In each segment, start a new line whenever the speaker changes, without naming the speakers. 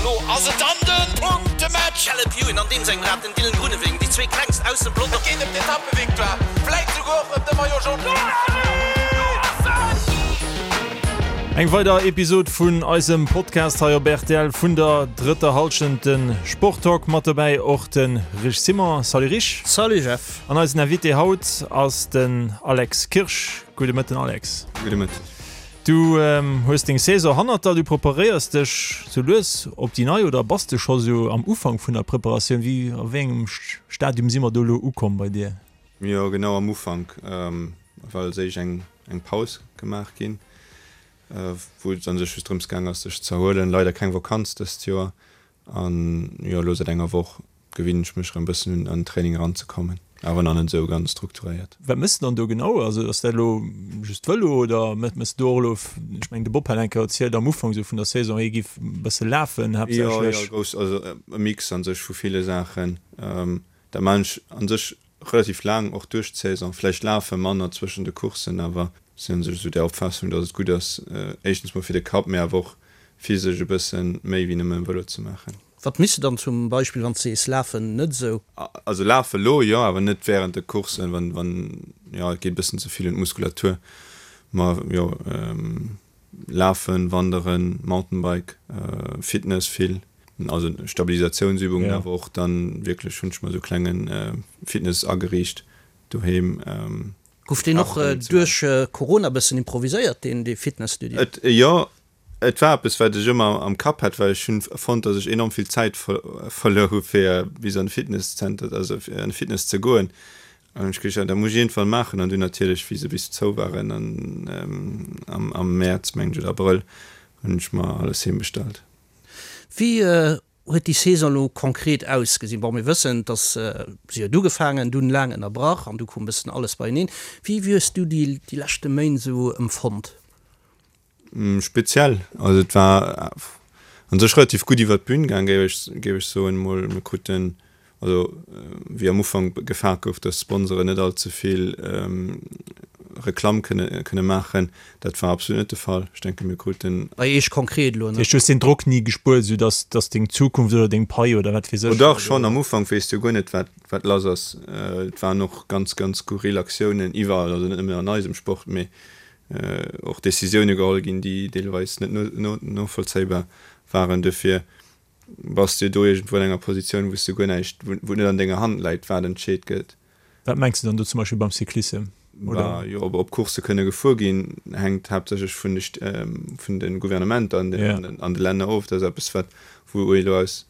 Lo ass et dann de Punktematch!
Caleb Ewan an deem sengem Rad, den Dylan Groenewegen, déi zwee klengst aus dem Pelotong.
Et geet ëm d'Etappevictoire, vläit souguer och ëm de Maillot Jaune.
Eng weider Episod vun eisem Podcast hei op rtl vun der drëtter Hallschent, de Sporttalk. Mat dobäi och de Rich Simon. Salut Rich.
Salut Jeff.
An eisen Invité haut ass den Alex Kirsch. Gudde Mëtten Alex.
Gudde Mëtten.
Du hues deng Saison hannert der, du preparéiers dech sou lues op déi nei oder bass de scho sou am Ufank vun der Preparatioun? Wéi, a wéi engem Stadium si mer do elo ukomm bei dir?
Jo, genau am Ufank, well als éischt eng eng Paus gemaach ginn, wou et an sech just drëms gaang ass sech z'erhuelen. Leider keng Vakanz dëst Joer an jo elo säit enger Woch gewinnen ech mech erëm bëssen un an den Training eranzekommen, awer nach net esou ganz strukturéiert.
Wat méchs de dann do genau? Also ass dat elo just Vëlo oder méchs de do och elo, ech mengen de Bob hat eng Kéier erzielt am Ufank esou vun der Saison, hie giff e bësse lafen
haaptsächlech. Jo, jo, grouss, also e Mix an sech vu ville Saachen. Dat maan ech an sech relativ laang, och duerch d'Saison. Vläicht lafe manner zwëschen de Courssen, awer sinn an sech esou der Opfaassung, datt et gutt ass, éischtens mol fir de Kapp, mee awer och physesch e bësse méi wéi nëmme Vëlo ze maachen.
Wat misst de dann zum Beispill, wann s de sees lafen, net esou?
Also lafe lo jo, awer net während de Courssen, wann, wann, jo, et geet e bëssen ze vill un d'Muskulatur. Ma jo, lafen, wanderen, Mountainbike, Fitness vill, also Stabilisatiounsübungen, awer och dann wierklech hunn ech mer esou klenge Fitness ageriicht doheem.
Gouf deen och duerch Corona bëssen improviséiert, deen dee Fitnesstudio?
Et, jo, Et war eppes, wat ech ëmmer am Kapp hat, well ech hunn fonnt, datt ech enorm vill Zäit verluer hu fir bis an de Fitnesszenter, also fir an de Fitness ze goen. An hunn ech geduecht, dat muss ech iergendwann maachen. An dunn natierlech, wéi se bis zou waren an am Mäerz, mengen ech, oder Abrëll, hunn ech mer alles heem bestallt.
Wéi huet déi Saison elo konkret ausgesinn? Bon, mir wëssen, dass se huet ugefaangen, dunn laang ënnerbrach an du koum e bëssen alles beieneen. Wéi hues du déi leschte Méint esou empfonnt?
Speziell, also et war an sech relativ gutt iwwer d'Bün gaang, géif ech géif ech soen mol. Mir kruten, also wéi am Ufank gefaart gouf, datt d'Sponsoren net all ze vill Reklamm kënne kënne maachen, dat war absolut net de Fall. Ech denke mir kruten.
Bei Iech konkret elo,
ne? Dat heescht, du hues deen Drock ni gespuert, esou datt datt deng Zukunft oder deng Pai oder wat weess
ech. Oh dach, schonn am Ufank weess de jo guer net wat wat lass ass. Et waren och ganz ganz skurril Aktiounen iwwerall, also net nëmmen an eisem Sport, mee och Decisioune geholl ginn, déi deelweis net novollzéibar waren. Duerfir bass de do iergendwou an enger Positioun, wou s de guer näischt, wou et net an denger Hand läit, wat entscheet gëtt.
Wat mengs de dann do zum Beispill beim Cyclissem,
oder? Jo, ob Coursse kënne gefuer ginn, hänkt haaptsächlech vun de vun de Gouvernementer an de Länner of. Dat ass eppes, wat wou ee elo aus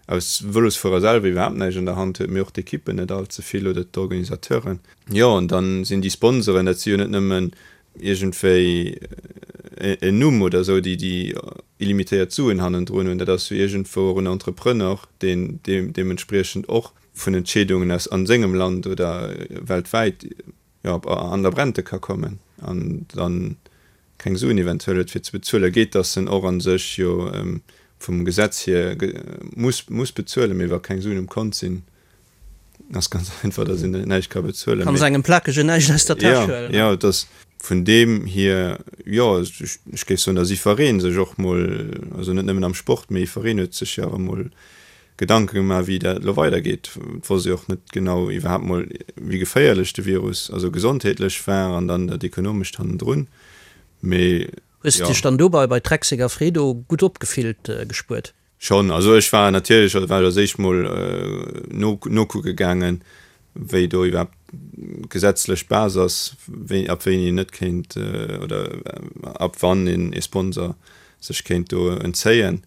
aus Vëlosfuerer selwer iwwerhaapt näischt an der Hand huet, mee och d'Ekippen net all ze vill oder d'Organisateuren. Jo, an dann sinn déi Sponsoren, dat si jo net nëmmen iergendwéi en Numm oder esou, déi déi illimitéiert Suen hannendrun hunn, dat ass jo iergendwou och en Entrepreneur, deen deementspriechend och vun Entscheedungen aus an sengem Land oder weltwäit, jo, an der Brente ka kommen an dann keng Suen eventuell huet fir ze bezuelen, geet, dass en och a sech jo vum Gesetz hier muss muss bezuelen, mee wa keng Suen um Kont sinn, ass ganz einfach, dass een näischt ka bezuelen.
Kann engem Plakegen näischt aus der Täsch huelen.
Jo, et ass vun deem hier, jo, ech géif soen, dass iwweree sech och mol, also net nëmmen am Sport, mee iwwereen huet sech jo awer mol Gedanke gemaach, wéi dat elo weidergeet. Et wosst ee och net genau iwwerhaapt mol, wéi geféierlech de Virus, also gesondheetlech war an dann dat Ekonomescht hannendrun. Mee
Hues de dech dann dobei bei Trek Segafredo gutt opgefillt gespuert?
Schonn. Also ech war natierlech, also war ech als éischt mol no nokucke gaangen, wéi do iwwerhaapt d'gesetzlech Base ass, wéi, ab wéini een net kéint oder ab wann een ee Sponsor sech kéint do entzéien.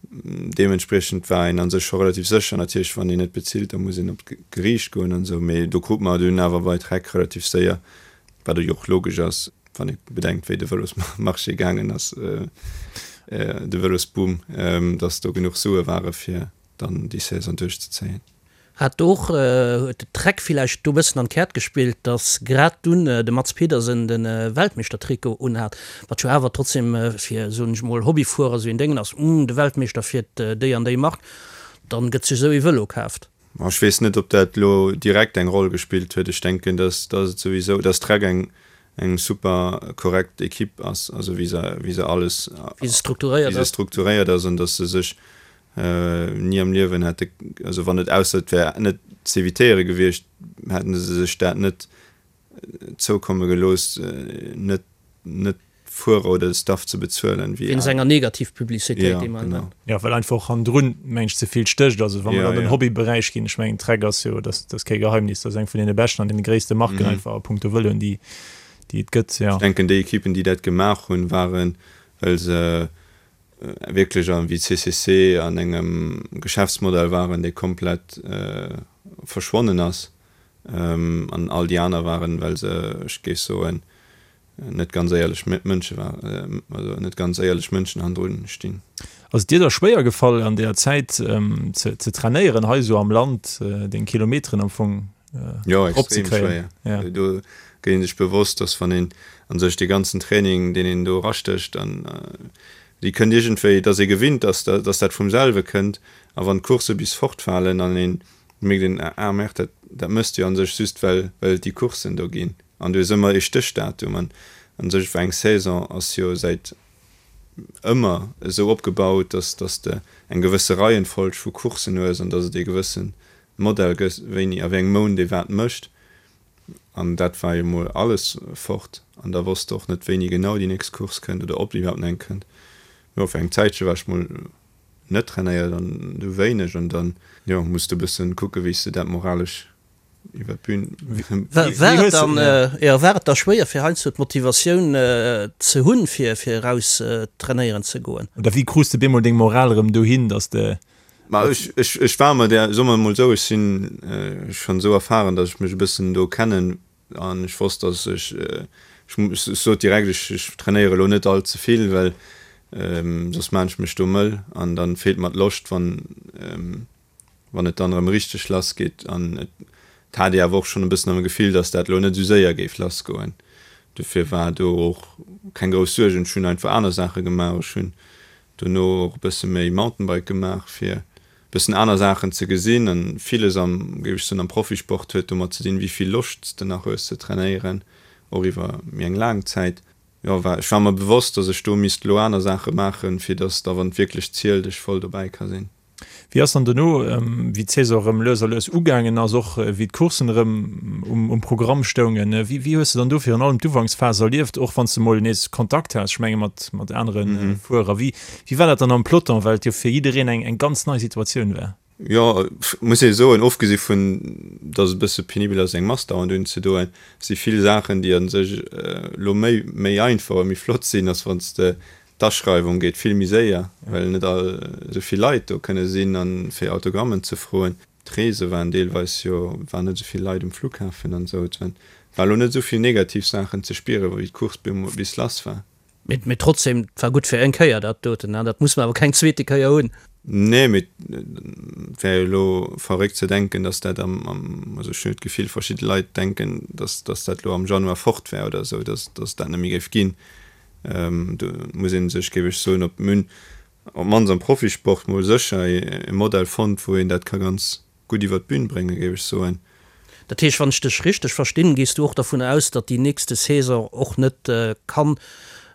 Deementspriechend war een a sech scho relativ sécher. Natierlech, wann een net bezilt, da muss een op d'Geriicht goen an esou, mee do krut mer dunn awer bei Trek relativ séier, wat jo och logesch ass, wann ee bedenkt, wéi de Vëlosmarché gaangen ass, de Vëlosboom, datt do genuch Sue ware fir dann déi Saison duerchzezéien.
Hat och, huet de Trek villäicht do bëssen an d'Käert gespillt, datt grad dunn de Mads Pedersen de Weltmeeschtertrikot unhat, wat jo awer trotzdem fir, soen ech mol, Hobbyfuerer esou een Déngen ass, Uhm, de Weltmeeschter fiert déi an déi Mark, dann gëtt sech esou ee Vëlo kaaft.
Ech weess net, ob dat elo direkt eng Roll gespillt huet. Ech denken, datt et souwisou, datt Trek eng. Eng super korrekt Equipe ass, also wéi se, wéi se alles,
Wéi se strukturéiert
wéi se
ass.
strukturéiert ass an datt se sech ni am Liewen hätte, also wann et, ausser et wär net z'evitéiere gewiescht, hätten se sech dat net zoukomme gelooss, net, net Fuerer oder de Staff ze bezuelen,
wéi Wéinst enger Negativpublicitéit,
Ja,
déi man
genau.
Jo, well einfach och hannendrun, meng ech, ze vill stécht. Also wa mer
Ja,
an den
ja.
Hobbyberäich ginn, ech mengen Trek ass jo, dat ass kee Geheimnis, dat ass eng vun deene beschten an deene gréisste Marken einfach a punkto Vëloen, déi déi et gëtt, jo.
Ech denken, déi Ekippen, déi dat gemaach hunn, waren, well se wierklech an, wéi CCC, an engem Geschäftsmodell waren, dee komplett verschwonnen ass. An all déi aner waren, well se, ech géif soen, net ganz éierlech Mënsche war, also net ganz éierlech Mënschen hannendrun stinn.
Ass et dir da schwéier gefall an deeër Zäit ze trainéieren hei esou am Land, deng Kilometeren am Fong
Jo, extrem schwéier. Do gëtt een sech bewosst, dass wann een a sech dee ganzen Training, deen een do erastécht, an déi kënnt iergendwéi, dass ee gewinnt ass, dass dat vum selwe kënnt, a wann d'Coursse bis fortfalen an een mierkt een, ah merde, dat dat méchs de jo a sech just well well et déi Courssen do ginn. An du hues ëmmer ee Stéchdatum. An a sech eng Saison ass jo säit ëmmer esou opgebaut, dass dass de eng gewësse Reihenfolg vu Courssen hues an dass et ee gewësse Modell gëtt, wéini a wéi engem Mount ee wat mécht. An dat war jo mol alles fort. An da wosst de och net, wéini genau déi nächst Course kënnt oder ob iwwerhaapt nach eng kënnt. Jo, fir eng Zäitche war ech mol net trainéiert an du wéineg an dann, jo, muss de e bëssen kucke wéi s de dat moralesch iwwer d'Bün.
War et dann, jo, war et da schwéier fir heiansdo d'Motivatioun ze hunn fir fir eraus trainéieren ze goen?
Oder wéi krus de bemol deng Moral erëm dohin, dass de.
Ma ech, ech, ech war mer där, soe mer emol esou, ech sinn schonn esou erfahren, dass ech mech e bëssen do kennen An ech wosst, dass ech, ech sot direkt, ech, ech trainéiere elo net all ze vill, well soss maan ech mech do mëll an dann feelt mer d'Loscht, wann, wann et dann erëm richteg lass geet. An et hat ee awer och schonn e bëssen am Gefill, dass dat elo net esou séier géif lass goen. Dofir war do och keng grouss Suergen. Ech hunn einfach aner Saache gemaach. Ech hunn dono och e bësse méi Mountainbike gemaach, fir bëssen aner Saachen ze gesinn an villes am, géif ech soen, am Profisport huet domat ze dinn, wéi vill Loscht s de nach hues ze trainéieren, och iwwer méi eng laang Zäit. Jo, war, ech war mer bewosst, dass ech do misst elo aner Saache maachen, fir dass da, wann et wierklech zielt, ech voll dobäi ka sinn.
Wéi ass dann dono, wéi d'Saison erëm lues a lues ugaangen ass, och wéi d'Courssen erëm um Programm stoungen, wéi wéi hues de dann do virun allem d'Ufanksphas erlieft, och wann s de mol nees Kontakt has, ech menge mat mat anere Fuerer, wéi Wéi war dat dann am Peloton, well et jo fir jiddereen eng eng ganz nei Situatioun war?
Jo, muss ee soen, ofgesi vun datt et e bësse penibel ass eng Mask dauernd unzedoen, si vill Saachen déi a sech elo méi méi einfach a méi flott sinn, ass wann s de d'Aschreiwung geet vill méi séier, well net all esou vill Leit do kënne sinn a fir Autogrammen ze froen. D'Reese waren deelweis jo, waren net esou vill Leit um Flughafen an esou. Et war elo net esou vill negativ Saachen ze spieren, wéi d'Course bis lass war.
Mee trotzdem, et war gutt fir eng Kéier dat doten, dat muss mer awer keng zweete Kéier hunn.
Nee, mee et wär jo elo verréckt ze denken, datt dat am, also ech hunn jo d'Gefill, verschidde Leit denken, datt dat elo am Januar fort wär oder esou, datt et dat net méi géif ginn. Do muss ee sech, géif ech soen, op d'mannst am Profisport mol sécher e Modell fonnt, wou een dat ka ganz gutt iwwer d'Bün bréngen, géif ech soen.
Dat heescht, wann ech dech richteg verstinn, gees du och dervun aus, datt déi nächste Saison och net kann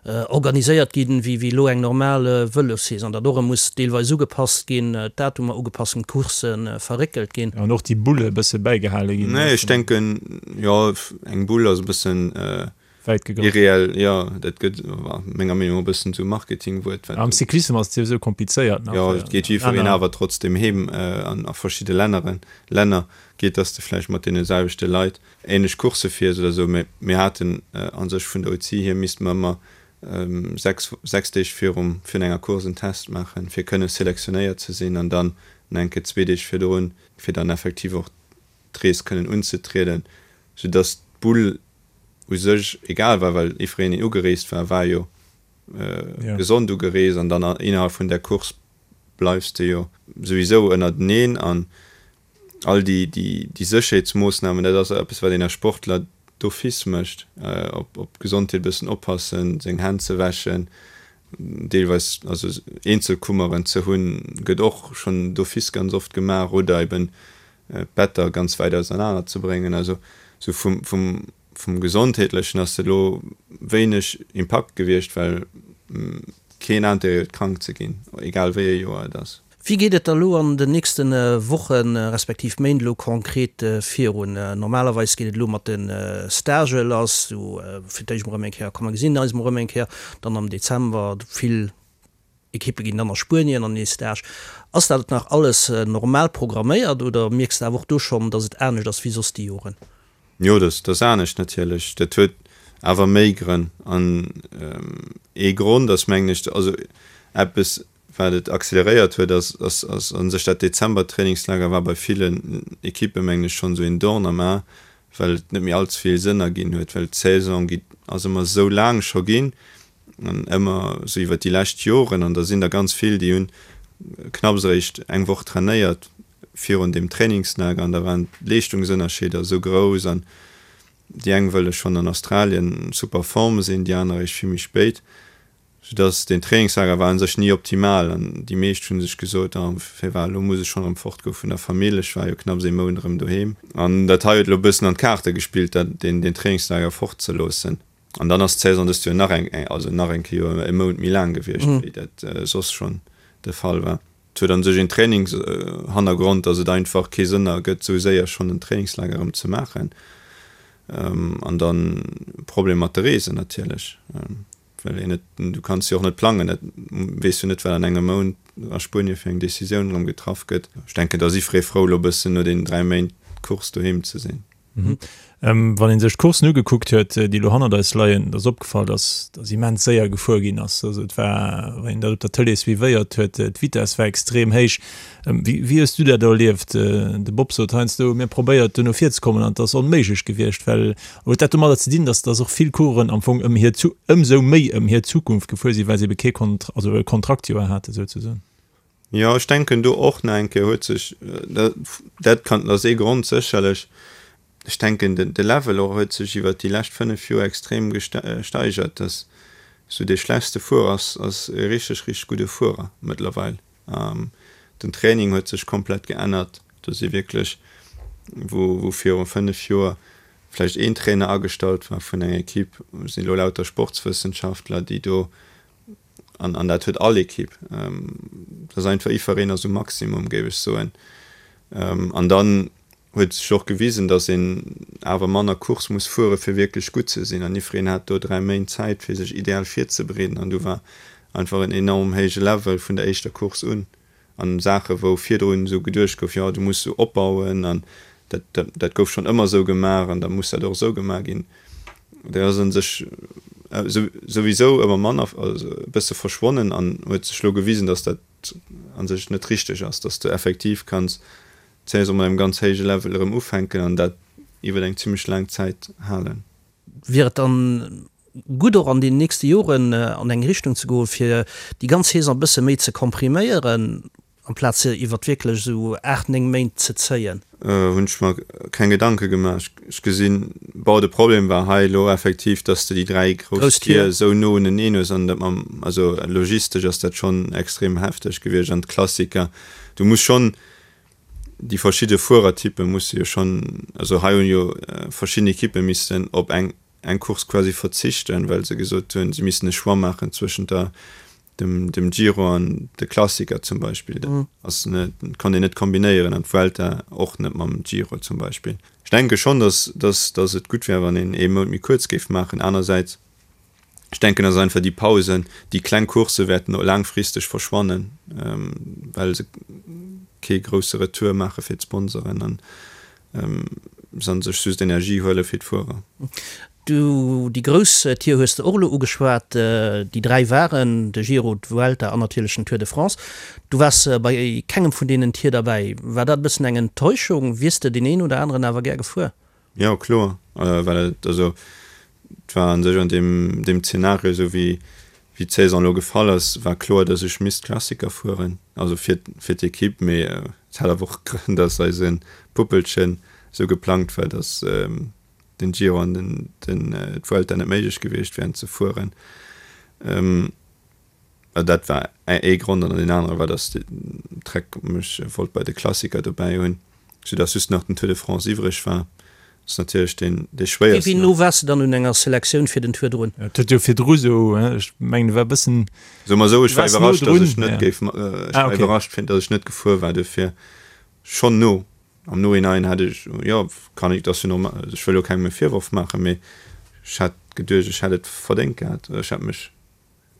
organiséiert ginn, wéi elo eng normal Vëlossaison, datt och erëm muss deelweis ugepasst ginn, d'Datumer ugepasst ginn, d'Coursse verréckelt ginn?
An och déi Bulle e bësse bäigehale ginn.
Nee, ech denken, jo, eng Bull ass e bëssen
Wäit gegraff.
Irreell, jo, dat gëtt menger Meenung no e bëssen zu Marketingwuert,
wat. Am Cyclissem ass et souwisou komplizéiert
nach. Jo, et geet jiddwereen awer trotzdem heem an a verschidde Länneren, Länner geet, dass de vläicht mat deene selwechte Leit ähnlech Coursse fiers oder esou. Mee mir haten a sech vun der UCI hier misste mer ëmmer 6, 6 Deeg virum, virun enger Course en Test maachen, fir kënne selektionéiert ze sinn an dann nach eng Kéier zwee Deeg virdrun, fir dann effektiv och d'Rees kënnen unzetrieden, soudass d'Bull u sech egal war, well jiddwereen deen ugereest war, war jo gesond ugereest an dann innerhalb vun där Course bleifs de jo souwisou ënnerteneen an all déi déi Sécherheetsmoossnamen, dat ass eppes wat een als Sportler d'office mécht, op op d'Gesondheet e bëssen oppassen, seng Hänn ze wäschen, deelweis also Eenzelkummeren ze hunn, gëtt och schonn d'office ganz oft gemaach oder eben d'Better ganz wäit ausernaner ze bréngen. Also sou vum, vum. vum Gesondheetlechen ass dat elo wéineg Impakt gewiescht, well keen Interêt huet krank ze ginn, egal wéi e Joer et ass.
Wéi geet et da lo an den nächste Wochen, respektiv Méint elo konkret virun? Normalerweis geet et elo mat de Stagë lass, sou fir d'éischt mol erëm eng Kéier, komm mer gesinn eis mol erëm eng Kéier, dann am Dezember, vill Ekippe ginn dann a Spuenien an ee Stage. Ass dat nach alles normal programméiert oder mierks de awer och do schonn, datt et anescht ass wéi soss déi Joren?
Jo, dat ass anescht natierlech. Dat huet awer méi Grënn an ee Grond ass mengen ech, also eppes Wat et acceleréiert huet, ass ass a sech dat Dezember-Trainingslager war bei villen Ekippe mengen ech schonn esou een Dorn am A, well et net méi allze vill Sënn erginn huet, well d'Saison gi ass ëmmer esou laang scho ginn an ëmmer esou iwwer déi lescht Joren an da sinn der ganz vill, déi hunn knapps eréischt eng Woch trainéiert virun deem Trainingslager an da waren d'Leeschtungsënnerscheeder esou grouss an déi eng wëlle schonn an Australien super Form sinn, déi aner eréischt vill méi spéit. Soudass deen Trainingslager war un sech ni optimal an déi meescht hunn sech gesot, ah firwat elo muss ech schonn erëm fortgoe vun der Famill, ech war jo knapps ee Mount erëm doheem. An dat hei huet elo e bëssen an d'Kaarte gespillt, dat deen deen Trainingslager fortzeloossen. An dann ass d'Saison dëst Joer nach eng also nach eng Kéier e Mount méi laang gewiescht, wéi dat soss schonn de Fall war. Et huet an sech een Trainingshannergrond, dass et einfach kee Sënn ergëtt, esou séier schonn en Trainingslager erëm ze maachen. An dann Problem mat de Reesen natierlech, well een net, du kanns jo och net plangen, dat weess jo net, wat an engem Mount a Spuenie fir eng Decisioun erëm getraff gëtt. Ech denken, da si free frou, elo e bëssen no deenen 3 Méint Course doheem ze sinn.
Wann ee sech d'Courssen ugekuckt huet, déi elo hannert eis leien, da ass opgefall, dass dass immens séier gefuer ginn ass. Also et war, wann een dat op der Tëlee suivéiert huet, d'Vitess war extrem héich. Wéi wéi hues du dat erlieft? De Bob sot heiansdo, mir probéiert do no vir ze kommen an et ass onméiglech gewiescht, well huet dat domadder ze dinn, dass dass och vill Coureuren am Fong ëm hir ëmsou méi ëm hir Zukunft gefuer sinn, well se ebe kee Kont also e Kontraktjoer hate souzesoen?
Jo, ech denken do och nach eng Kéier huet sech, dat kann, dat ass ee Grond sécherlech, ech denken de Level och huet sech iwwert déi lescht 5 Joer extrem gesteigert, dass esou dee schlechtste Fuerer ass, ass e richteg, richteg gudde Fuerer mëttlerweil. Den Training huet sech komplett geännert, do si wierklech, wou wou viru 5 Joer vläicht een Trainer agestallt war vun enger Equipe, sinn elo lauter Sportswëssenschaftler, déi do An, an dat huet all Ekipp. Dat ass einfach, iwwereen ass um Maximum, géif ech soen. An dann huet sech och gewisen, datt een awer manner Course muss fuere fir wierklech gutt ze sinn. An iwwereen hat do 3 Méint Zäit fir sech ideal virzebereeden. An du war einfach en enorm héije Level vun der éischter Course un. An Saache wou virdrun esou geduecht gouf, jo du muss esou opbauen an dat, dat, dat gouf schonn ëmmer esou gemaach an da muss dat och esou gemaach ginn, dat ass a sech souwisou ëmmer manner, also e bësse verschwonnen an huet sech elo gewisen, datt dat a sech net richteg ass, datt s de effektiv kanns d'Saison mat engem ganz héije Level erëm ufänken an dat iwwer eng zimmlech laang Zäit halen.
Wier et dann gutt och an den nächste Joren an eng Richtung ze goen, fir déi ganz Saison e bësse méi ze kompriméieren, amplaz se iwwert wierklech esou 8, 9 Méint ze zéien?
Hunn ech mer keng Gedanke gemaach. Ech gesinn, bon, de Problem war hei elo effektiv, dass de déi 3 grouss Tier esou no uneneen hues an dat mam, also logistesch ass dat schonn extrem hefteg gewiescht an d'Klassiker, du muss schonn déi verschidde Fuerertyppe musse jo schonn, also hei hunn jo verschidden Ekippe missten op eng eng Course quasi verzichten, well se gesot hunn, se missten e Choix maachen zwëschent der dem dem Giro an de Klassiker zum Beispill. Dat ass net, konnt een net kombinéieren an d'Vuelta och net mam Giro zum Beispill. Ech denke schonn, datt datt datt et gutt wär, wann een ee Mount méi kuerz géif maachen. Anersäits Ech denken, dass einfach déi Pausen, déi kleng Coursse wäerten och laangfristeg verschwannen, well se kee grousse Retour maache fir d'Sponsoren an se an sech just Energie huele fir d'Fuerer.
Du, déi grouss Tier hues de och elo ugeschwat. Déi 3 waren de Giro, d'Vuelta an natierlech den Tour de France. Du waars bei kengem vun deenen Tier derbäi. War dat e bëssen eng Enttäuschung? Wiers de deen een oder aneren awer gär gefuer?
Jo, kloer, well et, also et war an sech an deem, deem Zeenario, esou wéi, wéi d'Saison elo gefall ass, war kloer, datt ech misst Klassiker fueren, also fir, fir d'Ekipp. Mee et hat awer och Grënn, datt eise Puppelchen esou geplangt war, datt den Giro an den, den, d'Vuelta net méiglech gewiescht wären ze fueren. Dat war ee Grond an deen anere war, datt Trek mech wollt bei de Klassiker dobäi hunn, soudatt just nach den Tour de France iwwreg war. Ass natierlech deen dee schwéiersten.
Wéi no waars de dann un enger Selektioun fir den Tour drun?
Et huet jo virdru sou, ech mengen du war bëssen.
Soe mer esou, ech war iwwerrascht, datt ech net géif, ech war iwwerrascht fir datt ech net gefuer war, duerfir schonn no. Am Nohinein hätt ech, jo kann ech, dat ass jo normal, ech wëll jo kengem e Virworf maachen, mee ech hätt geduecht, ech hätt et verdéngt gehat, ech hätt mech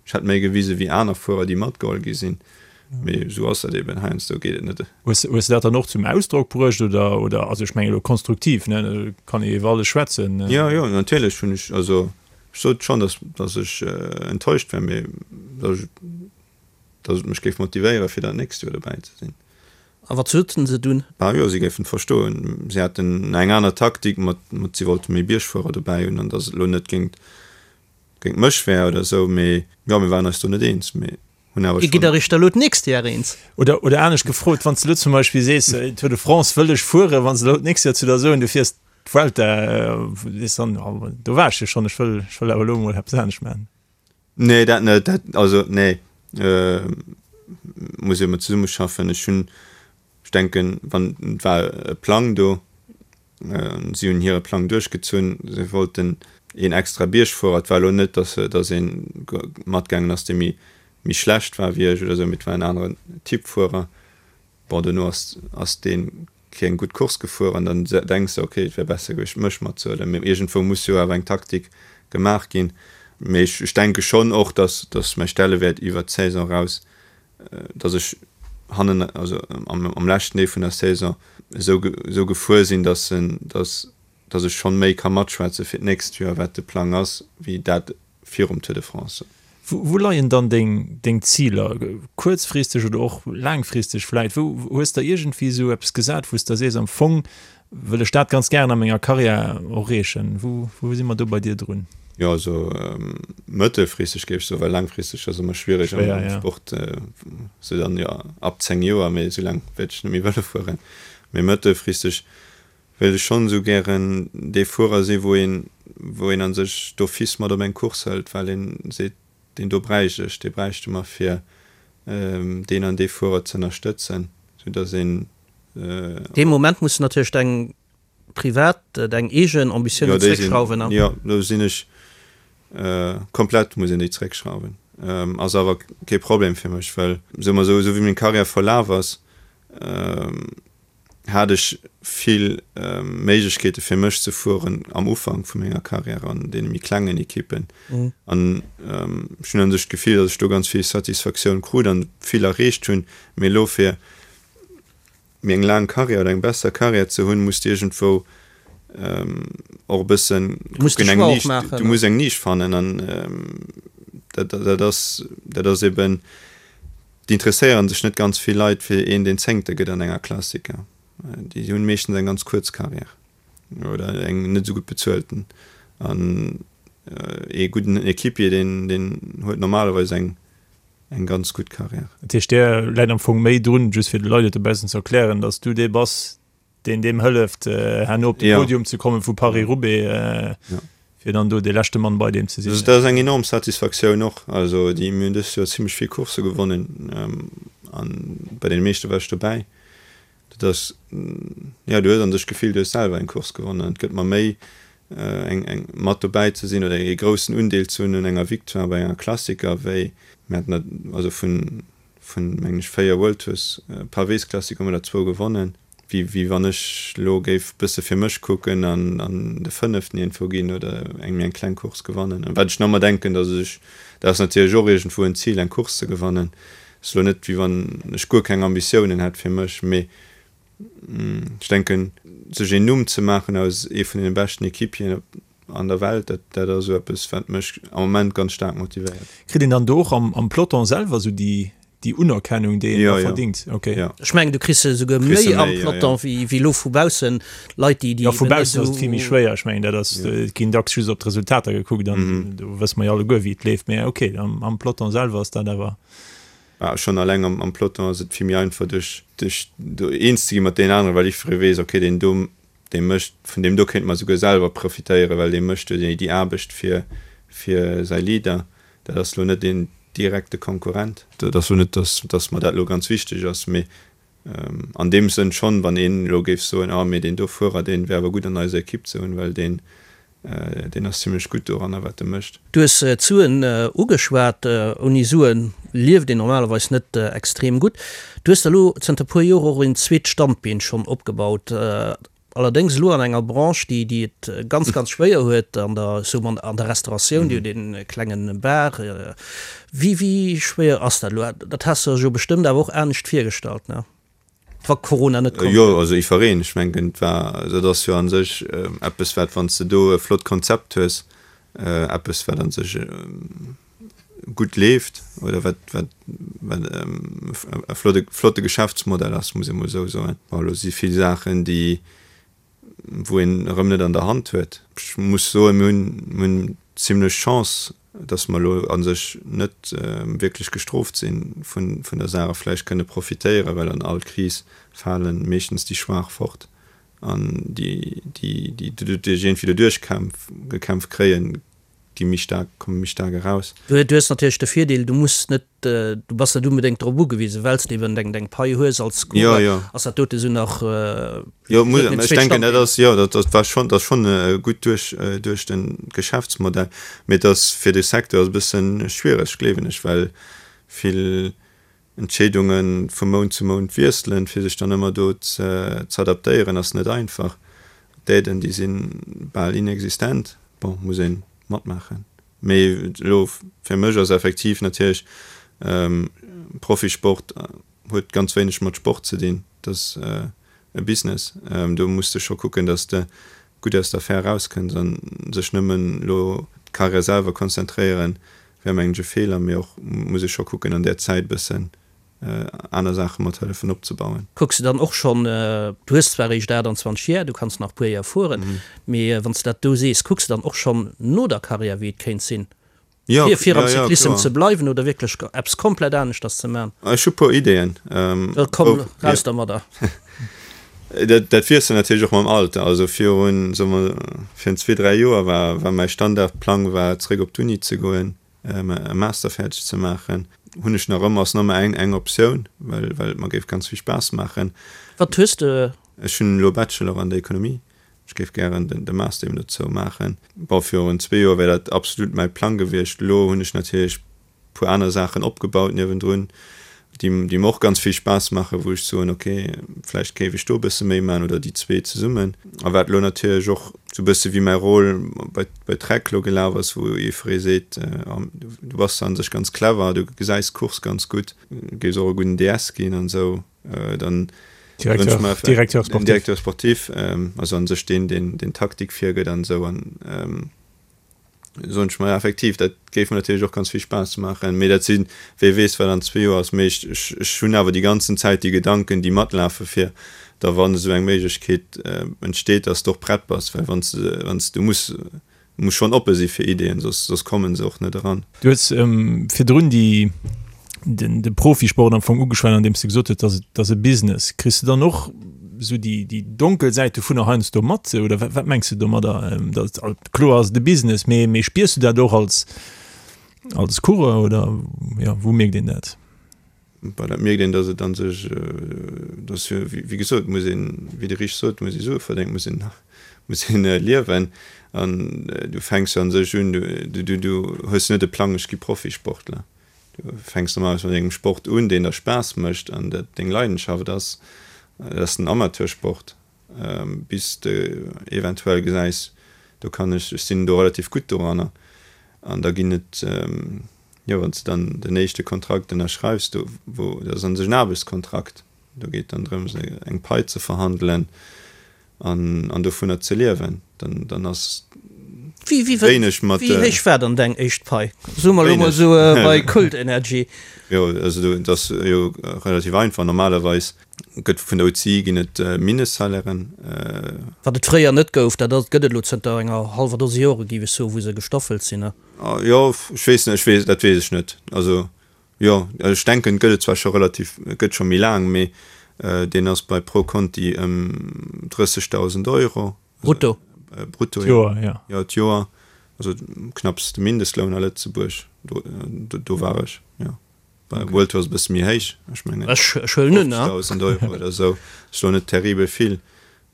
Ech hätt méi gewise wéi aner Fuerer, déi matgeholl gi sinn. Mee esou ass dat eben, heiansdo geet et net.
Hues hues de dat dann och zum Ausdrock bruecht oder, oder, also ech mengen elo konstruktiv, ne, do kann ee iwwer alles schwätzen.
Jo, jo, natierlech hunn ech, also ech sot schonn, datt, datt ech enttäuscht war, mee datt ech, datt et mech géif motivéieren, fir dat nächst Joer dobäi ze sinn.
A wat soten se dunn?
Ah jo, si géifen et verstoen. Si haten eng aner Taktik mat, mat si wollte méi Biergfuerer dobäi hunn an datt et elo net géingt géint mech wär oder esou, mee jo, mir waren eis do net eens, mee
hunn awer Dir gitt schonn. Iech da lo d'nächst Jar eens?
Oder, oder anescht gefrot, wann s de elo zum Beispill sees, Tour de France wëll ech fueren, wann se elo d'nächst Joer zu der soen, du fiers d'Vuelta, sees dann, oh, do war ech jo schonn, ech wëll, ech wëll awer elo emol eppes anescht maachen?
Nee, dat net, dat, also nee, muss ee ëmmer zesummeschaffen. Ech hunn, ech denken, wann, et war e Plang do, Si hunn hire Plang duerchgezunn. Si wollten een extra Biergfuerer. Et war elo net, datt datt ee matgaangen ass, dee méi méi schlecht war wéi ech oder esou, mee et war en aneren Typ Fuerer. Bon, dono ass ass dee keng gutt Course gefuer an dann denks de, okay, et wär besser gewiescht, mech matzehuelen. Mee iergendwou muss jo awer eng Taktik gemaach ginn. Mee ech ech denke schonn och, datt datt mäi Stellewäert iwwert d'Saison eraus dass ech hannen, also am leschten Deel vun der Saison esou esou gefuer sinn, dass en, dass dass ech schonn méi ka matschwätze fir d'nächst Joer, wat de Plang ass, wéi dat virum Tour de France.
Wou leien dann deng deng Ziler, kuerzfristeg oder och laangfristeg vläit? Wou hues der iergendwéi esou eppes gesat, wou s der sees, am Fong Wëll ech dat ganz gären a menger Karriär erreechen. Wou, wou si mer do bei dir drun?
Jo, also mëttelfristeg géif ech soen, well laangfristeg ass ëmmer schwiereg am Sport, sou dann jo ab 10 Joer, mee esou laang wäert ech net méi Vëlo fueren. Mee mëttelfristeg wéilt ech schonn esou gären dee Fuerer si wou een, wou een a sech d'office mat op eng Course hëlt, well een seet, deen do bräicht ech, dee bräichte mer fir deen an dee Fuerer ze ënnerstëtzen, sou datt een
Dee Moment muss de natierlech deng privat, deng eegen Ambitiounen
zréckschrauwen. Jo, do sinn ech komplett, muss een déi zréckschrauwen. Ass awer kee Problem fir mech, well soe mer esou, esou wéi meng Karriär verlaf ass, hat ech vill Méiglechkeete fir mech ze fueren am Ufank vu menger Karriär an deene méi klengen Ekippen. An ech hunn un sech d'Gefill, datt ech do ganz vill Satisfaktioun krut an vill erreecht hunn. Mee elo fir méi eng laang Karriär oder eng besser Karriär ze hunn, muss de iergendwou och e bëssen kucken, eng Nisch, du muss eng Nisch fannen an dat, dat ass, dat ass eben, d'interesséieren sech net ganz vill Leit fir een, deen Zéngte gëtt an enger Klassiker. Déi hunn meeschtens eng ganz kuerz Karriär oder eng net esou gutt bezuelten. An ee gudden Equipier, deen, deen huet normalerweis eng eng ganz gutt Carrière.
Dat heescht, där läit am Fong méi drun, just fir de Leit et e bessen ze erklären, datt s du dee bass, deen deem hëlleft, herno op de Podium ze kommen vu Paris-Roubaix, fir dann do dee leschte Mann bei deem ze
sinn. Dat ass eng enorm Satisfaktioun och. Also déi, mir hunn dëst Joer zimlech vill Coursse gewonnen an bei deene meeschte war ech dobäi. Dat ass, jo, du hues an sech d'Gefill, du hues selwer eng Course gewonnen. Et gëtt mer méi, eng, eng, mat dobäi ze sinn oder ee groussen Undeel ze hunn un enger Victoire bei enger Klassiker, wéi mir haten dat, also vun, vun, mengen ech, 4 World Tours Pavésklassiker hu mer der zwou gewonnen, wéi, wéi wann ech elo géif bësse fir mech kucken an, an de fënneften iergendwou ginn oder eng méi eng kleng Course gewannen. Wat ech nach ëmmer denken, datt ech, dat ass natierlech och iergendwou en Zil, eng Course ze gewannen, Ass elo net wéi wann ech guer keng Ambitiounen hätt fir mech, mee ech denken sech een Numm ze maachen aus ee vun deene beschten Equipieren an der Welt, dat dat ass esou eppes wat mech am Moment ganz staark motivéiert.
Kritt een dann do och am Peloton selwer esou déi déi Unerkennung déi een da verdingt?
Ok. Ech mengen du kriss se esouguer méi am Peloton wéi wéi elo vu baussen Leit déi
déi. Jo vu baussen ass et vill méi schwéier, ech mengen dat ass, et ginn dacks just op d'Resultater gekuckt an do wësse mer jo alleguer wéi et leeft, mee ok am Peloton selwer ass dat awer.
Mä schonn alleng am Peloton ass et vill méi einfach duerch duerch do eens ze gi mat deenen aneren, well jiddweree weess, ok deen do dee mécht, vun deem do kéinte mer souguer selwer profitéieren, well dee mécht jo déi Aarbecht fir fir säi Leader. Dat ass elo net een direkte Konkurrent. Dat ass elo net, datt datt mer dat elo ganz wichteg ass, mee. An deem Sënn schonn, wann een elo géif soen, ah mee deen do Fuerer, deen wär awer gutt an eiser Ekipp ze hunn, well deen, deen ass zimlech gutt doranner wat e mécht.
Du hues d'Suen ugeschwat. Ouni Suen lieft een normalerweis net extrem gutt. Du hues der elo zënter puer Joer och een zweet Standbeen schonn opgebaut. Allerdéngs elo an enger Branche, déi déi et ganz, ganz schwéier huet, an der, ech soe mol, an der Restauratioun, Dir hutt ee klenge Bar. Wéi, wéi schwéier ass dat elo? Dat has de der jo bestëmmt awer och anescht virgestallt, ne? Wa Corona net komm
wär. Jo, also iwwereen. Ech mengen, et war, dat ass jo a sech eppes, wat, wann s de do e flott Konzept hues, eppes, wat a sech gutt leeft oder wat, wat, wat e flotte, flotte Geschäftsmodell ass, muss ee mol esou soen. Bon, elo si vill Saachen, déi, wou een erëm net an der Hand huet. Ech muss soen, mir hunn, mir hunn zimlech Chance, datt mer elo a sech net wierklech gestrooft si vun, vun der Saach a vläicht kënne profitéieren, well an all Kris fale meeschtens déi Schwaach fort an déi, déi, déi doduerch iergendwéi doduerch kämpf, gekämpft kréien, gi méi staark, komme méi staark eraus.
Du hues natierlech de Virdeel, du muss net, du bass net onbedéngt drop ugewisen, well s de eben deng deng Pai hues als
Coureur,
ass dat dote sou nach.
Jo, muss, ech denken, dat ass, jo, dat dat war schonn, dat ass schonn gutt duerch duerch de Geschäftsmodell, mee et ass fir de Secteur ass e bësse schwiereg, gleewen ech, well vill Entscheedunge vu Mount zu Mount wiesselen, fir sech dann ëmmer do z'adaptéieren, ass net einfach. D'Aiden, déi si bal inexistent. Bon, muss ee matmaachen. Mee elo fir mech ass effektiv natierlech, Profisport huet ganz wéineg mat Sport ze dinn. Dat ass e Business. Do muss de scho kucken, datt s de gutt aus der Affär erauskënns an sech nëmmen elo d'Karriär selwer konzentréieren, wär mengen ech e Feeler, mee och muss ee scho kucken an där Zäit bëssen aner Saache mat hëllefen opzebauen.
Kucks de dann och schonn, du hues zwar eréischt 28 Jar, du kanns nach puer Jar fueren, mee wann s de dat do sees, kucks de dann och schonn no der Karriär wéi et kéint sinn, fir fir am Cyclissem ze bleiwen oder wierklech eppes komplett aneschters ze man?
Ech hu puer Ideeën.
Da komm raus dermadder.
Dat dat wiesselt natierlech och mam Alter. Also virun, soe mer, virun zwee, dräi Joer war war mäi Standardplang war zeréck op d'Uni ze goen, e Master fäerdeg ze maachen. Hunn ech nach ëmmer, ass nach ëmmer eng eng Optioun, well well et mer géif ganz vill Spaass maachen.
Wat hues de?
Ech hunn elo Bachelor an der Ekonomie. Ech géif gären den de Master eben dozou maachen. Bon, virun zwee Joer wär dat absolut mäi Plang gewiescht. Elo hunn ech natierlech puer aner Saachen opgebaut niewendrun, déi déi mer och ganz vill Spaass maachen, wou ech soen, ok, vläicht géif ech do e bësse méi maachen oder déi zwee zesummen. A wat elo natierlech och sou e bësse wéi mäi Rôle bei bei Trek elo gelaf ass, wou jiddweree seet, du bass an sech ganz clever, du gesäis d'Course ganz gutt, géifs och e gudden DS ginn an esou, dann
Directeur, Directeur
sportif. Directeur sportif, also an sech deen, deen deen Taktik virgëtt an esou an. Soen ech mer, effektiv, dat géif mer natierlech och ganz vill Spaass maachen. Mee dat sinn, wee weess, wat an zwee Joer ass. Mee ech, ech, ech hunn awer déi ganzen Zäit déi Gedanken, déi matlafe fir da wann esou eng Méiglechkeet entsteet, dass de och prett bass. Well wann s de, wann s, du muss, du muss schonn oppe si fir Ideeën, soss, soss komme se och net eran.
Du hues virdrun déi, den, de Profisport am Fong ugeschwat, andeems de gesot hues, dass et, dass e Business. Kriss de dann och esou déi, déi donkel Säit dovunner heiansdo mat oder wat, wat mengs de domadder? Dass, kloer ass et e Business, mee, mee spiers du dat och als, als Coureur oder, jo, wou mierkt een dat?
Bon, dat mierkt een, dass et an sech, dass jo, wéi gesot, muss een, wéi de Rich sot, muss ee Sue verdéngen, muss een, muss een liewen. An du fänks jo an sech un, du, du, du hues net de Plang, ech gi Profisportler. Du fänks normalerweis mat engem Sport un, deen der Spaass mécht an dat deng Leidenschaft ass. Dat ass den Amateursport, bis de eventuell gesäis, do kann ech, ech sinn do relativ gutt doranner. An da ginn et, jo, wann s de dann den éischte Kontrakt ënnerschreifs, do wou, dat ass a sech en Aarbechtskontrakt, do geet dann drëms eng Pai ze verhandelen an an dovunner ze liewen, dann dann ass
Wéi wéi wéineg mat. Wéi héich war dann deng éischt Pai? Soe mer elo mol esou bei Kult Energy.
Jo, also do dat ass jo relativ einfach. Normalerweis gëtt vun der UCI ginn et Mindestsalairen.
Wat et fréier net gouf, dat ass gëtt et elo zënter enger hallwer Dose Jore géif ech soen, wou se gestaffelt sinn, ne?
Jo, ech weess net, ech weess, dat weess ech net. Also Jo, ech denken et gëtt et zwar scho relativ, et gëtt scho méi laang, mee deen ass bei Pro Conti ëm 30.000 Euro.
Brutto?
Brutto, jo. D'Joer, jo. Jo, d'Joer, also knapps de Mindestloun a Lëtzebuerg, do do war ech, jo. Bei World Tour ass e bësse méi héich, ech mengen
Ech huelen un,
50.000 Euro oder esou, ass elo net terribel vill.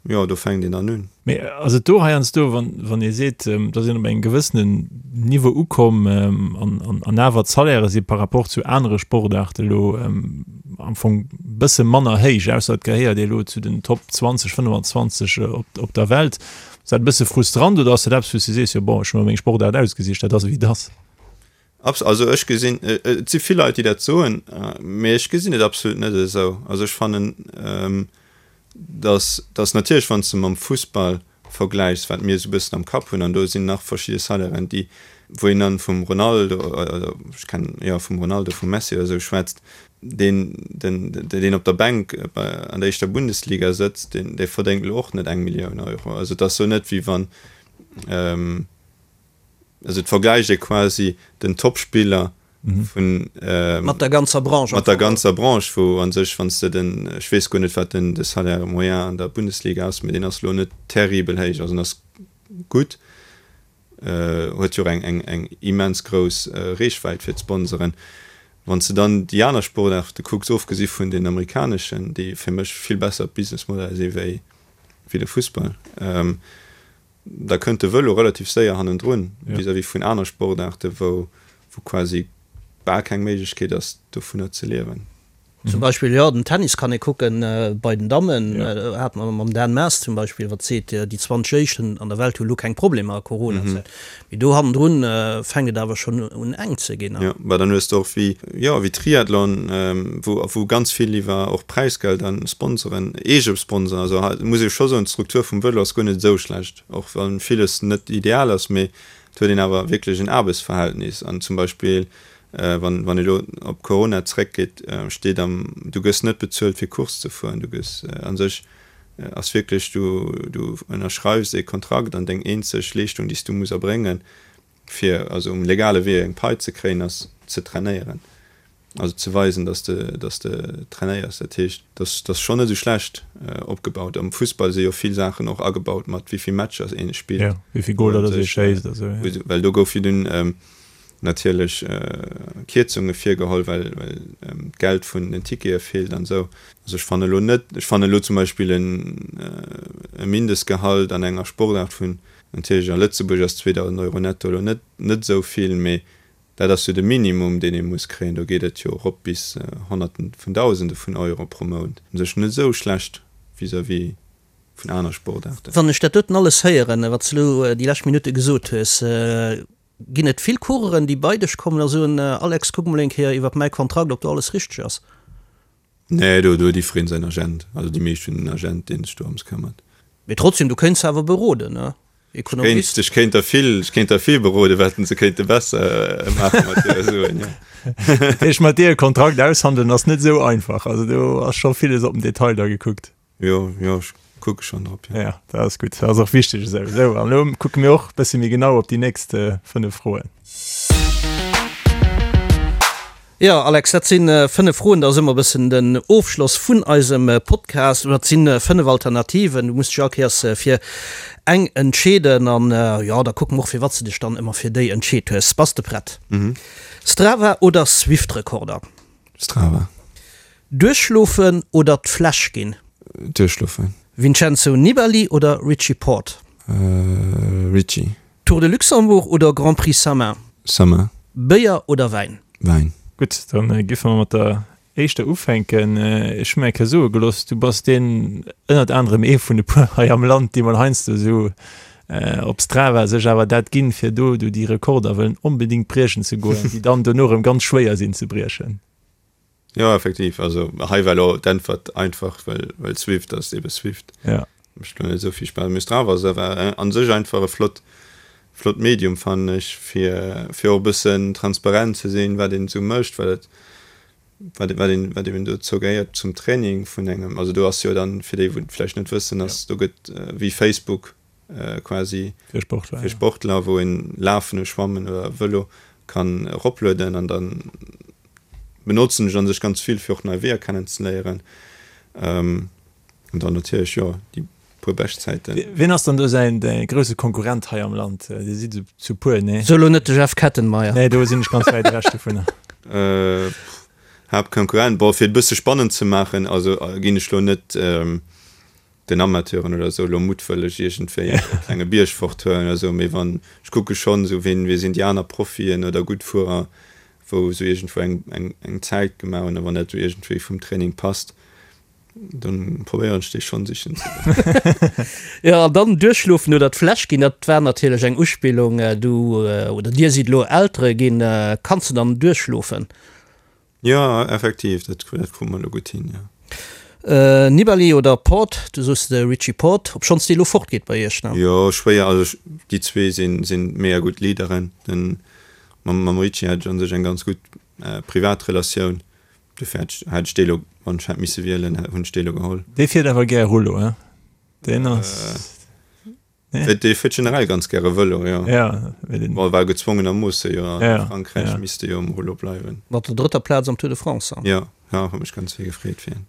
Jo, do fänkt een dann un.
Mee ass et do heiansdo, wann ee seet, da ass een op engem gewëssenen Niveau ukomm an awer d'Salairë si par rapport zu anere Sportaarte elo am Fong e bësse manner héich, ausser et gehéiert ee elo zu den Top 20, 25 op der Welt, ass dat e bësse frustrant oder ass dat eppes, wou s de sees, jo bon, ech hu mer meng Sportaart ausgesicht, dat ass ewéi et ass?
Abs. Also ech gesinn, et si vill Leit, déi dat soen, mee ech gesinn et absolut net esou. Also ech fannen, datt, datt natierlech, wann s de mam Fussball vergläichs, wat mir esou e bëssen am Kapp hunn, an do sinn nach verschidde Salairen, déi, wou een dann vum Ronaldo, oder ech kennen, jo, vum Ronaldo, vum Messi oder esou schwätzt, deen, den, deen op der Bänk bei, an der éischter Bundesliga sëtzt, deen, dee verdéngt elo och net eng Millioun Euro. Also et ass elo net, wéi wann, Also et vergläicht ee quasi den Topspiller vun.
Mat der ganzer Branche.
Mat der ganzer Branche, wou a sech, wann s de den, ech weess guer net, wat den de Salaire moyen an der Bundesliga ass, mee deen ass elo net terribel héich, also en ass gutt, huet jo och eng eng eng immens grouss Reechwäit fir d'Sponsoren. Wann s de dann déi aner Sportaarte kucks, ofgesi vun den amerikaneschen, déi fir mech vill besser Businessmodeller si wéi wéi de Fussball, Da kënnt de Vëlo relativ séier hannendrun vis-à-vis vun aner Sportaarte wou quasi bal keng Méiglechkeet ass dovunner ze liewen.
Zum Beispill, jo, den Tennis kann ee kucken bei den Dammen, hat mer mam Dan Maas zum Beispill, wat seet, déi 20 éischten an der Welt hu lo keng Problemer a Coronazäit. Mee do hannendrun fänkt et awer schonn un enk ze ginn.
Jo, bah dann hues de och wéi, jo, wéi Triathlon, wou, wou ganz vill iwwer och Präisgeld an Sponsoren, eege Sponsoren, also hei muss ee scho soen, d'Struktur vum Vëlo ass guer net esou schlecht, och wann villes net ideal ass, mee et huet een awer wierklech en Aarbechtsverhältnis an zum Beispill, wann, wann ee lo op Corona zréckgeet, steet am, du gëss net bezuelt fir Course ze fueren, du gëss a sech ass wierklech, du, du ënnerschreifs ee Kontrakt an deng eenzeg Leeschtung, déi s du muss erbréngen, fir also um legale Wee eng Pai ze kréien, ass ze trainéieren, also ze weisen, dass de, dass de trainéiers. Dat heescht, dass ass schonn net esou schlecht opgebaut. Am Fussball si jo vill Saachen och agebaut mat wéi vill Matcher een spillt,
Jo, wéi vill Goler dass ee schéisst a sou, jo.
Well do gouf jo dunn natierlech Kierzunge virgeholl, well d'Geld vun den Tickete feelt an esou. Also ech fanne elo net, ech fanne elo zum Beispill e Mindestgehalt an enger Sportaart vun, natierlech a Lëtzebuerg ass 2.000 Euro netto elo net net esou vill, mee dat ass jo de Minimum deen ee muss kréien. Do geet et jo erop bis Honnerten vun Dausende vun Euro pro Mount. U sech net esou schlecht vis-à-vis vun aner Sportaarten.
Wann ech dat doten alles héieren, wat s de elo déi lescht Minutte gesot hues, Ginn et vill Coureuren, déi bei dech kommen a soen, Alex, kuck mol eng Kéier iwwert mäi Kontrakt, ob do alles richteg ass?
Nee, do huet jiddwereen säin Agent. Also déi meescht hunn en Agent, dee sech dorëms këmmert.
Mee trotzdem, du kéints se awer beroden, ne?
Ekonomist. Ech kéint der vill, ech kéint der vill beroden, wat se kéinte besser maache mat hire Suen, jo.
Dat heescht, mat dir e Kontrakt aushandelen ass net esou einfach. Also do ass scho villes op den Detail da gekuckt.
Jo, jo, ech kucke schonn drop,
jo. Ja, dat ass gutt. Dat ass och wichteg esou. Esou, an elo kucke mir och e bësse méi genau op déi nächst 5 Froen.
Jo, Alex, dat si 5 Froen. Dat ass ëmmer e bëssen den Ofschloss vun eisem Podcast. Oder et si 5 Alternativen. Du muss dech all Kéiers fir eng entscheeden. An jo, da kucke mer och, firwat s de dech dann ëmmer fir déi entscheet hues. Bass de prett? Strava oder Swift-Rekorder?
Strava.
Duerchschlofen oder d'Fläsch ginn?
Duerchschlofen.
Vincenzo Nibali oder Richie Porte?
Richie.
Tour de Luxembourg oder Grand Prix Samin?
Samin.
Béier oder Wäin?
Wäin.
Gutt, dann giffe mer mat der éischter ufänken. Ech hu mir eng Kéier soe gelooss, du bass deen, ënnert anerem ee vun e puer hei am Land, déi mol heiansdo esou op Strava sech awer dat ginn, fir do do déi Rekorder wëllen onbedéngt briechen ze goen, déi dann dono erëm ganz schwéier sinn ze briechen.
Jo, effektiv. Also hei war elo d'Äntwert einfach, well, well Swift ass ebe Swift.
Ja.
Mécht elo net esou vill Spaass. Mee Strava ass awer an sech einfach e flott, flott Medium, fannen ech, fir, fir och e bëssen transparent ze sinn, wat een esou mécht, well et, wat, wat een, wat eben dozou gehéiert zum Training vun engem. Also do ass jo dann, fir déi wou et vläicht net wëssen, ass, do gëtt wéi Facebook quasi
fir Sportler,
fir Sportler, wou een Lafen, Schwammen oder Vëlo kann eroplueden an dann benotzen ech an sech ganz vill fir och nei Weeër kennen ze léieren an dann natierlech jo déi puer Beschtzäiten.
Wien ass dann do säin grousse Konkurrent hei am Land? Dir sidd zu puer, nee?
So elo net de Jeff Kettenmeyer.
Nee, do sinn ech ganz wäit ewech dovunner.
Haaptkonkurrent. Bon, fir et e bësse spannend ze maachen, also ginn ech lo net den Amateuren oder esou lo muttwëlleg iergendwéi e klenge Bierg forthuelen oder esou, mee wann, ech kucke schonn esou, ween, wee sinn déi aner Profien oder gutt Fuerer, wou esou iergendwou eng, eng, eng Zäit gemaach hunn a wann dat esou iergendwéi vum Training passt, dann probéieren ech déi schonn sichen ze goen.
Jo, an dann duerchschlofen oder d'Fläsch ginn, dat war natierlech eng Uspillung. Du oder dir sidd elo Eltere ginn, kanns de dann duerchschlofen?
Jo, effektiv, dat dat krute mer elo gutt hin, jo.
Nibali oder Porte, du soos de Richie Porte, obschonns dee lo fort geet bei iech, ne?
Jo, schwéier, also ech, déi zwee sinn sinn mega gutt Leaderen. Den mam mam Richie hat ech an sech eng ganz gutt privat Relatioun, dofir hätt ech hätt ech dee lo, wann ech hätt misse wielen, hunn ech dee lo geholl.
Dee fiert awer gär Rullo, he? Deen ass.
Dee fiert generell ganz gäre Vëlo, jo.
Ja,
Bon, war gezwongenermoosse jo a Frankräich, misst e jo um Rullo bleiwen.
Mat der drëtter Plaz am Tour de France.
Jo, jo, huet mech ganz vill gefreet fir hien.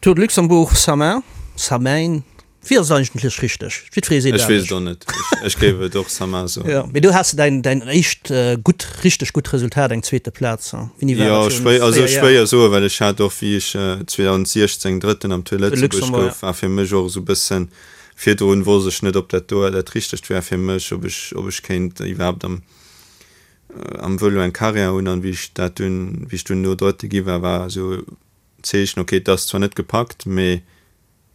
Tour de Luxembourg, Samain, Samain, wéi ass et eigentlech richteg? Jiddweree seet
Ech weess et och net. Ech géif et och Samain soen.
Jo, mee do has de däin, däin éischt gutt, richteg gutt Resultat, eng zweete Plaz.
Wéini war dat? Jo, schwéier, also schwéier soen, well ech hat och, wéi ech 2016 Drëtten am Tour de Lëtzebuerg gouf, war fir mech och esou e bëssen Virdrun wosst ech net, ob dat do dat Richtegt wär fir mech, ob ech, ob ech kéint iwwerhaapt am, am Vëlo eng Carrière hunn. An wéi ech dat dunn, wéi ech dunn do Drëtte gi war, war esou d'Zeechen, ok, et ass zwar net gepackt, mee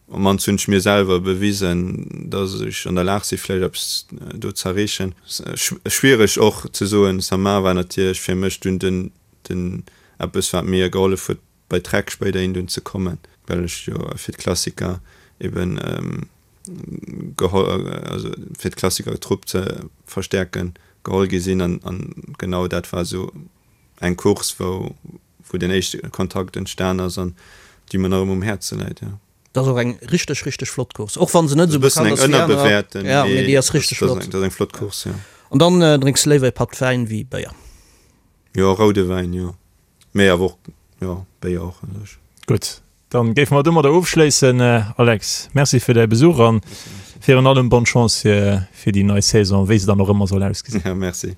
op mannst hunn ech mir selwer bewisen, dass ech an der Lag si vläicht eppes do z'erreechen. Schwiereg och ze soen. Samar war natierlech fir mech dunn den, den eppes wat mir gehollef huet, bei Trek spéiderhin dunn ze kommen, well ech jo fir d'Klassiker eben geholl, also fir d'Klassikertrupp ze verstäerken, geholl gi sinn an an genau dat war esou eng Course wou wou den éischte Kontakt entstan ass an déi mer nach ëmmer um Häerze läit, jo.
Dat ass och eng richteg richteg flott Course, och wann se net esou bekannt ass wéi anerer, jo, mee déi ass richteg flott.
Dat ass eng flott Course, jo.
An dann drénks de léiwer e Patt Wäin wéi Béier?
Jo, roude Wäin, jo. Mee awer och, jo, Béier och an sech.
Gutt, dann géife mer domadder ofschléissen. Alex, Merci fir däi Besuch an virun allem bonne Chance fir déi nei Saison, wéi se dann och ëmmer soll ausgesinn.
Ja, merci.